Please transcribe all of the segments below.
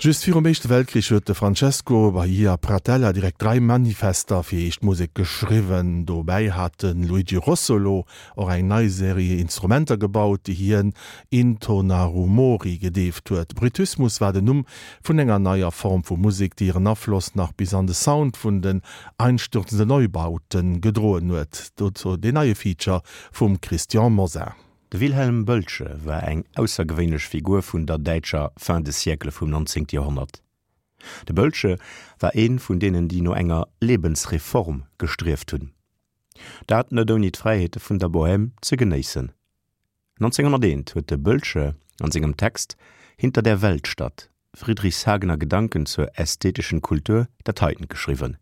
Just virum Éischte Weltkrich huet de Francesco Bahia Pratella direkt 3 Manifester fir eescht Musek geschriwwen. Dobäi hat de Luigi Russolo och eng nei Serie Instrumenter gebaut, déi hien Intonarumori gedeeft huet. Bruitismus war den Numm vun enger neier Form vu Musek, déi hiren Afloss nach bis an de Sound vun den Einstürzende Neubauten gedroen huet. Dozou deen neie Feature vum Christian Mosar. De Wilhelm Bölsche war eng aussergewéinlech Figur vun der däitscher Fin de siècle vum 19. Joerhonnert. De Bölsche war ee vun deenen, déi no enger Lebensreform gestrieft hunn. Dat net ouni d'Fräiheete vun der Bohème ze genéissen. 1901 huet de Bölsche an sengem Text Hinter der Weltstadt, Friedrichshagener Gedanken zur ästhetischen Kultur dat heiten geschriwwen.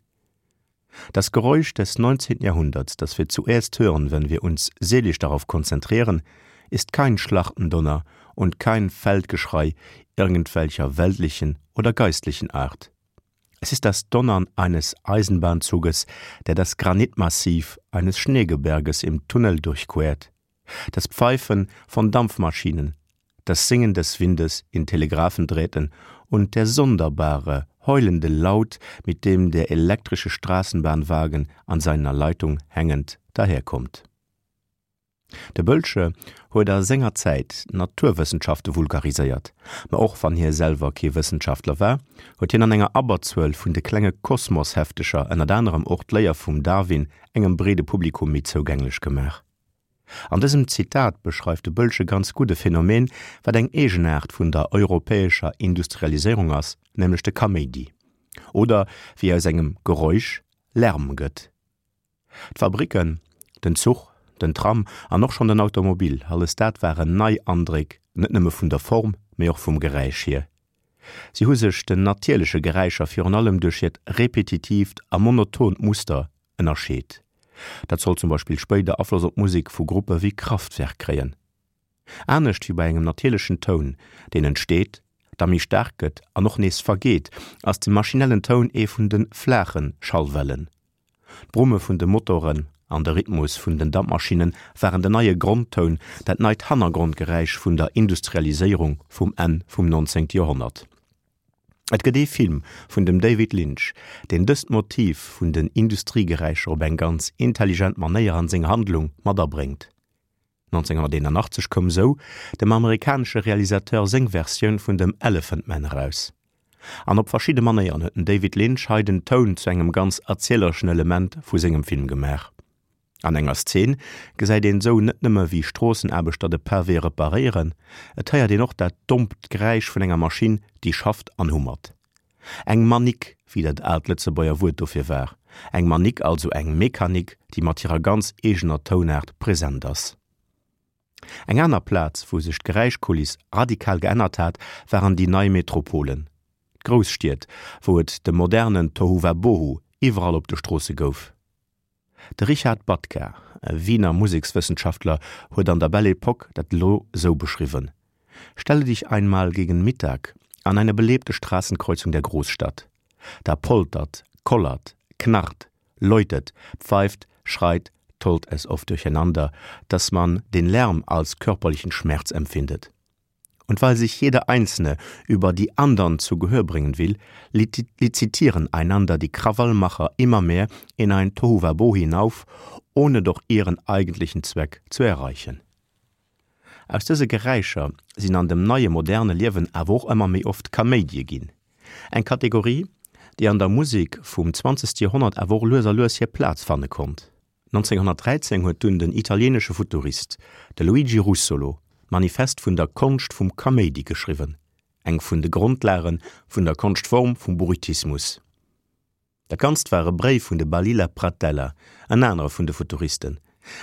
Das Geräusch des 19. Jahrhunderts, das wir zuerst hören, wenn wir uns seelisch darauf konzentrieren, ist kein Schlachtendonner und kein Feldgeschrei irgendwelcher weltlichen oder geistlichen Art. Es ist das Donnern eines Eisenbahnzuges, der das Granitmassiv eines Schneegebirges im Tunnel durchquert, das Pfeifen von Dampfmaschinen, das Singen des Windes in Telegraphendrähten und der sonderbare, heulende Laut, mit dem der elektrische Straßenbahnwagen an seiner Leitung hängend daherkommt. De Bölsche huet a senger Zäit d'Naturwëssenschafte vulgariséiert, ma och wann hie selwer kee Wëssenschaftler war, huet hien an enger Abberzuel vun de klenge Kosmos-Heftecher ënnert anerem och d'Léier vum Darwin engem breede Publikum méi zougänglech gemaach. An dësem Zitat beschreift de Bölsche ganz gutt e Phänomen, wat eng Eegenaart vun der europäescher Industrialiséierung ass, nämlech de Kaméidi. Oder wéi aus engem Geräusch Lärm gëtt. D'Fabricken, den Zuch, den Tram an och schonn den Automobil, alles dat waren nei Andréck, net nëmme vun der Form, mee och vum Geräisch hier. Si hu sech den natierleche Geräischer virun allem duerch hiert repetitiivt a monotont Muster ënnerscheet. Dat soll zum Beispill spéider Afloss op d'Musek vu Gruppe wéi Kraftwerk kréien. Anescht wéi bei engem natierlechen Toun, deen entsteet, da méi staark gëtt an och nees vergeet, ass de maschinellen Toun ee vun de flaache Schallwellen. D'Brumme vun de Motoren an de Rhythmus vun den Dampmaschinne waren den neie Grondtoun, dat neit Hannergrondgeräisch vun der Industrialiséierung vum Enn vum 19. Joerhonnert. Et gëtt ee Film vun dem David Lynch, deen dëst Motiv vun den Industriegeräischer op eng ganz intelligent Manéier an seng Handlung mat abréngt. 1981 koum sou dem amerikanesche Realisateur seng Versioun vun dem Elephant Man eraus. An op verschidde Manéieren huet den David Lynch hei den Toun zu engem ganz erzielereschen Element vu sengem Film gemaach. An enger Szene gesäit een sou net nëmme wéi Stroossenaarbechter de Pavé reparéieren, et héiert een och dat dompt Geräisch vun enger Maschinn, déi schafft an hummert. Eng Manick, wéi dat aalt Lëtzebuerger Wuert dofir war. Eng Manick, also eng Mechanik, déi mat hirer ganz eegener Tounaart present ass. Eng aner Plaz, wou sech d'Geräischkuliss radikal geännert hat, waren déi nei Metropolen, d'Grousstied, wou et de modernen Tohuwabohu iwwerall op de Stroosse gouf. De Richard Batka, e Wiener Musekswëssenschaftler, huet an der Belle Époque dat elo sou beschriwwen, Stelle dich einmal gegen Mittag an eine belebte Straßenkreuzung der Großstadt. Da poltert, kollert, knarrt, läutet, pfeift, schreit, tollt es oft durcheinander, dass man den Lärm als körperlichen Schmerz empfindet. Und weil sich jeder Einzelne über die andern zu Gehör bringen will, lizitieren einander die Krawallmacher immer mehr in ein Tohuwabohu hinauf, ohne doch ihren eigentlichen Zweck zu erreichen. Aus dëse Geräischer sinn an dem neie moderne Liewen awer och ëmmer méi oft Kaméidie ginn. Eng Kategorie, déi an der Musek vum zwanzegste Joerhonnert awer och lues a lues hir Plaz fanne konnt. 1913 huet dunn den italieenesche Futurist, de Luigi Russolo, d'Manifest vun der Konscht vum Kaméidi geschriwwen, eng vun de Grondlage vun der Konschtform vum Bruitismus. Dat Ganzt war e Bréif vun de Balilla Pratella, en anere vun de Futuristen,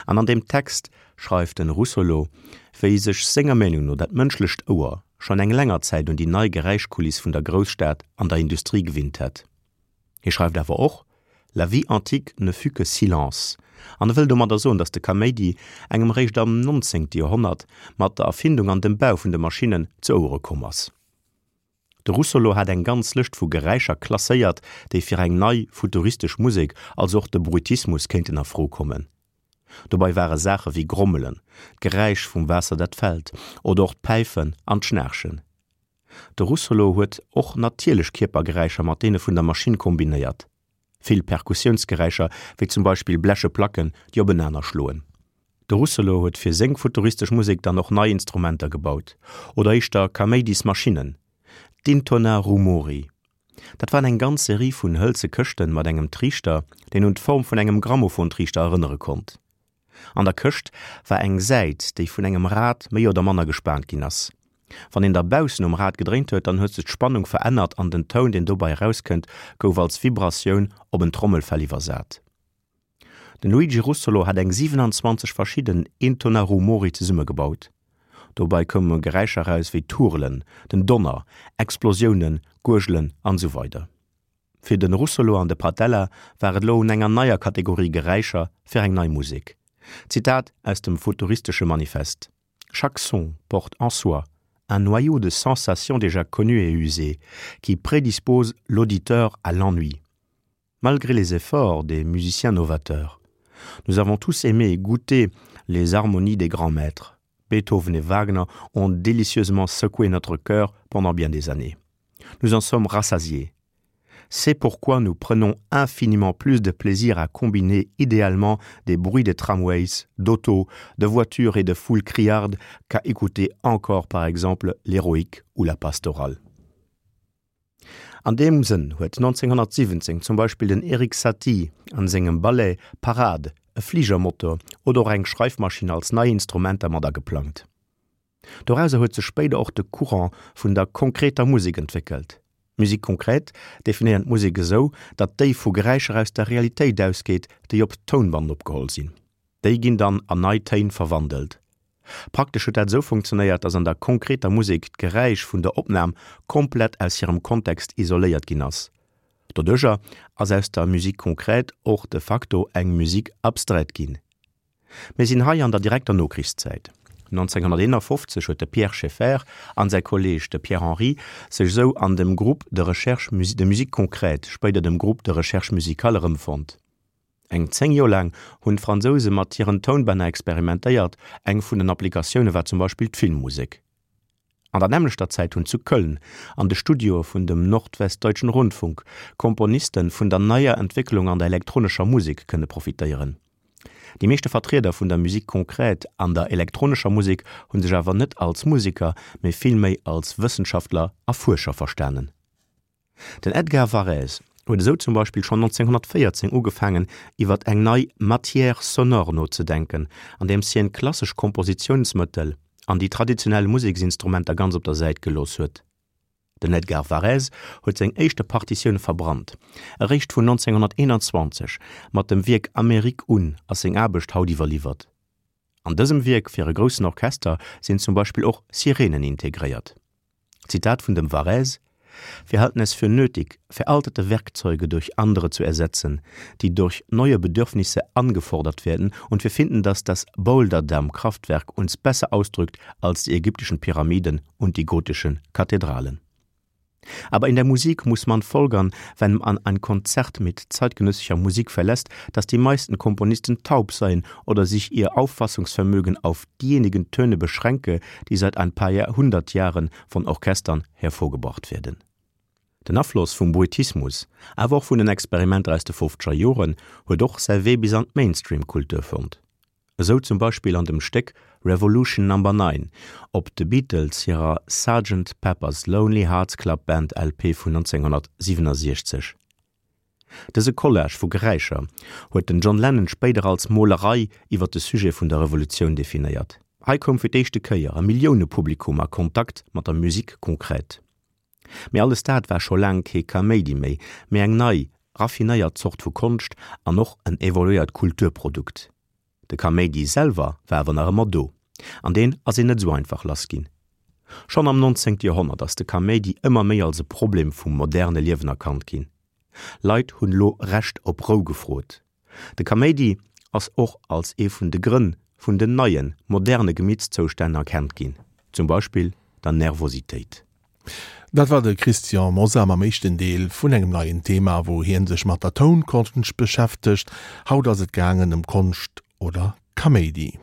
an an deem Text schreift den Russolo, wéi sech senger Meenung no dat mënschlecht Ouer schonn eng länger Zäit un déi nei Geräischkuliss vun der Grousstad an der Industrie gewinnt hätt. Hie schreift awer och, La vie antique ne fut que silence, an e wëll domadder soen, datt de Kaméidi engem eréischt am 19. Joerhonnert mat der Erfindung an dem Bau vun de Maschinnen zu Ouere komm ass. De Russolo hat eng ganz Lëscht vu Geräischer klasséiert, déi fir eng nei, futuristesch Musek, also och de Bruitismus, kéinten a Fro kommen. Dobei ware Saache wéi Grommelen, d'Geräisch vum Waasser dat fält, oder och d'Päifen an d'Schnaarchen. De Russolo huet och natierlech Kierpergeräischer mat deene vun der Maschinn kombinéiert. Vill Perkussiounsgeräischer, wéi zum Beispill bleche Placken, déi openaner schloen. De Russolo huet fir seng futuristesch Musek dann och nei Instrumenter gebaut, oder éischter Kaméidismaschinnen, d'Intonarumori. Dat waren eng ganz Serie vun hëlze Këschten mat engem Triichter, deen un d'Form vun engem Grammophontriichter erënnere konnt. An der Këscht war eng Säit, déi vun engem Rad méi oder manner gespaant ginn ass. Wann een da baussen um Rad gedréint huet, dann huet sech d'Spannung verännert an den Toun, deen dobei erauskënnt, gouf als Vibratioun op en Trommelfell iwwersat. Den Luigi Russolo hat eng 27 verschidden Intonarumori zesummegebaut. Dobei koume Geräischer eraus wéi Turelen, den Donner, Explosiounen, Guergelen an esou weider. Fir de Russolo an de Pratella war et elo un enger neier Kategorie Geräischer fir eng nei Musek. Zitat aus dem futuristesche Manifest, Chaque son porte en soi un noyau de sensations déjà connues et usées, qui prédispose l'auditeur à l'ennui. Malgré les efforts des musiciens novateurs, nous avons tous aimé et goûté les harmonies des grands maîtres. Beethoven et Wagner ont délicieusement secoué notre cœur pendant bien des années. Nous en sommes rassasiés. C'est pourquoi nous prenons infiniment plus de plaisir à combiner idéalement des bruits de tramways, d'autos, de voitures et de foules criardes qu'à écouter encore par exemple l'héroïque ou la pastorale. An deem Sënn huet 1917 zum Beispill den Erik Satie an sengem Ballet Parade e Fligermotor oder och eng Schreifmaschinn als nei Instrumenter mat ageplangt. Dorauser huet sech spéider och de Courant vun der konkreter Musek entwéckelt. D'Musique concrète definéiert d'Musek esou, datt déi vu Geräischer aus der Realitéit ausgeet, déi op Tounband opgeholl sinn. Déi ginn dann an nei Téin verwandelt. Praktesch huet dat esou funktionéiert, datt an der konkreter Musek d'Geräisch vun der Opnam komplett aus hirem Kontext isoléiert ginn ass. Doduercher ass aus der Musique concrète och de facto eng Musique abstraite ginn. Mir sinn hei an der direkter Nokrichszäit. 1951 huet de Pierre Schaeffer an säi Kolleeg de Pierre Henry sech esou an dem Groupe de recherche de musique concrète, spéider dem Groupe de recherche musicale, erëmfonnt. Eng 10 Joer laang hunn d'Fransouse mat hiren Tounbänner experimentéiert, eng vun den Applikatioune war zum Beispill d'Filmmusek. An der nämmlechter Zäit hunn zu Köln an de Studioe vun dem Nordwestdeutschen Rundfunk Komponiste vun der neier Entwécklung an der elektronescher Musek kënne profitéieren. Déi meeschte Vertrieder vun der Musique concrète an der elektronescher Musek hu sech awer net als Museker, mee villméi als Wëssenschaftler a Fuerscher verstanen. Den Edgar Varèse huet esou zum Beispill schonn 1914 ugefaangen iwwer eng nei Matière sonore nozedenken, andeems hien klassesch Kompositiounsmëttel an déi traditionell Museksinstrumenter ganz op der Säit gelooss huet. Den Edgar Varèse huet seng éischte Partitioun verbrannt. Eréischt vun 1921 mat dem Wierk Amérique un ass seng Aarbecht haut iwwerliwwert. An dësem Wierk fir e groussen Orchester sinn zum Beispill och Sirenen integréiert. Zitat vun dem Varèse, Wir halten es für nötig, veraltete Werkzeuge durch andere zu ersetzen, die durch neue Bedürfnisse angefordert werden, und wir finden, dass das Boulderdammkraftwerk uns besser ausdrückt als die ägyptischen Pyramiden und die gotischen Kathedralen. Aber in der Musik muss man folgern, wenn man ein Konzert mit zeitgenössischer Musik verlässt, dass die meisten Komponisten taub seien oder sich ihr Auffassungsvermögen auf diejenigen Töne beschränke, die seit ein paar Jahrhundert Jahren von Orchestern hervorgebracht werden. Den Afloss vum Bruitismus, awer och vun den Experimenter aus de fofzeger Joren, huet och säi Wee bis an d'Mainstream-Kultur fonnt. Esou zum Beispill an dem Stéck Revolution Number Nine op de Beatles hirer Sergeant Pepper's Lonely Hearts Club Band LP vun 1967. Dëse Collage vu Geräischer huet den John Lennon spéider als Molerei iwwer de Sujet vun der Revolutioun definéiert. Hei koum fir d'éischte Kéier e Milliounepublikum a Kontakt mat der Musique concrète. Mee alles dat war scho laang kee Kaméidi méi, mee eng nei, raffinéiert Zort vu Konscht an och en evoluéiert Kulturprodukt. De Kaméidi selwer war awer nach ëmmer do, an deen ass een net esou einfach lass ginn. Schonn am 19. Joerhonnert ass de Kaméidi ëmmer méi als e Problem vum moderne Liewen erkannt ginn. Leit hunn elo Recht op Rou gefrot. De Kaméidi ass och als ee vun de Grënn vun den neien, moderne Gemittzoustänn erkennt ginn, zum Beispill der Nervositéit. Dat war de Christian Mosar mam éischten Deel vun engem neien Thema, wou hien sech mat der Tounkonscht beschäftegt. Haut ass et gaangen ëm Konscht oder Kaméidi.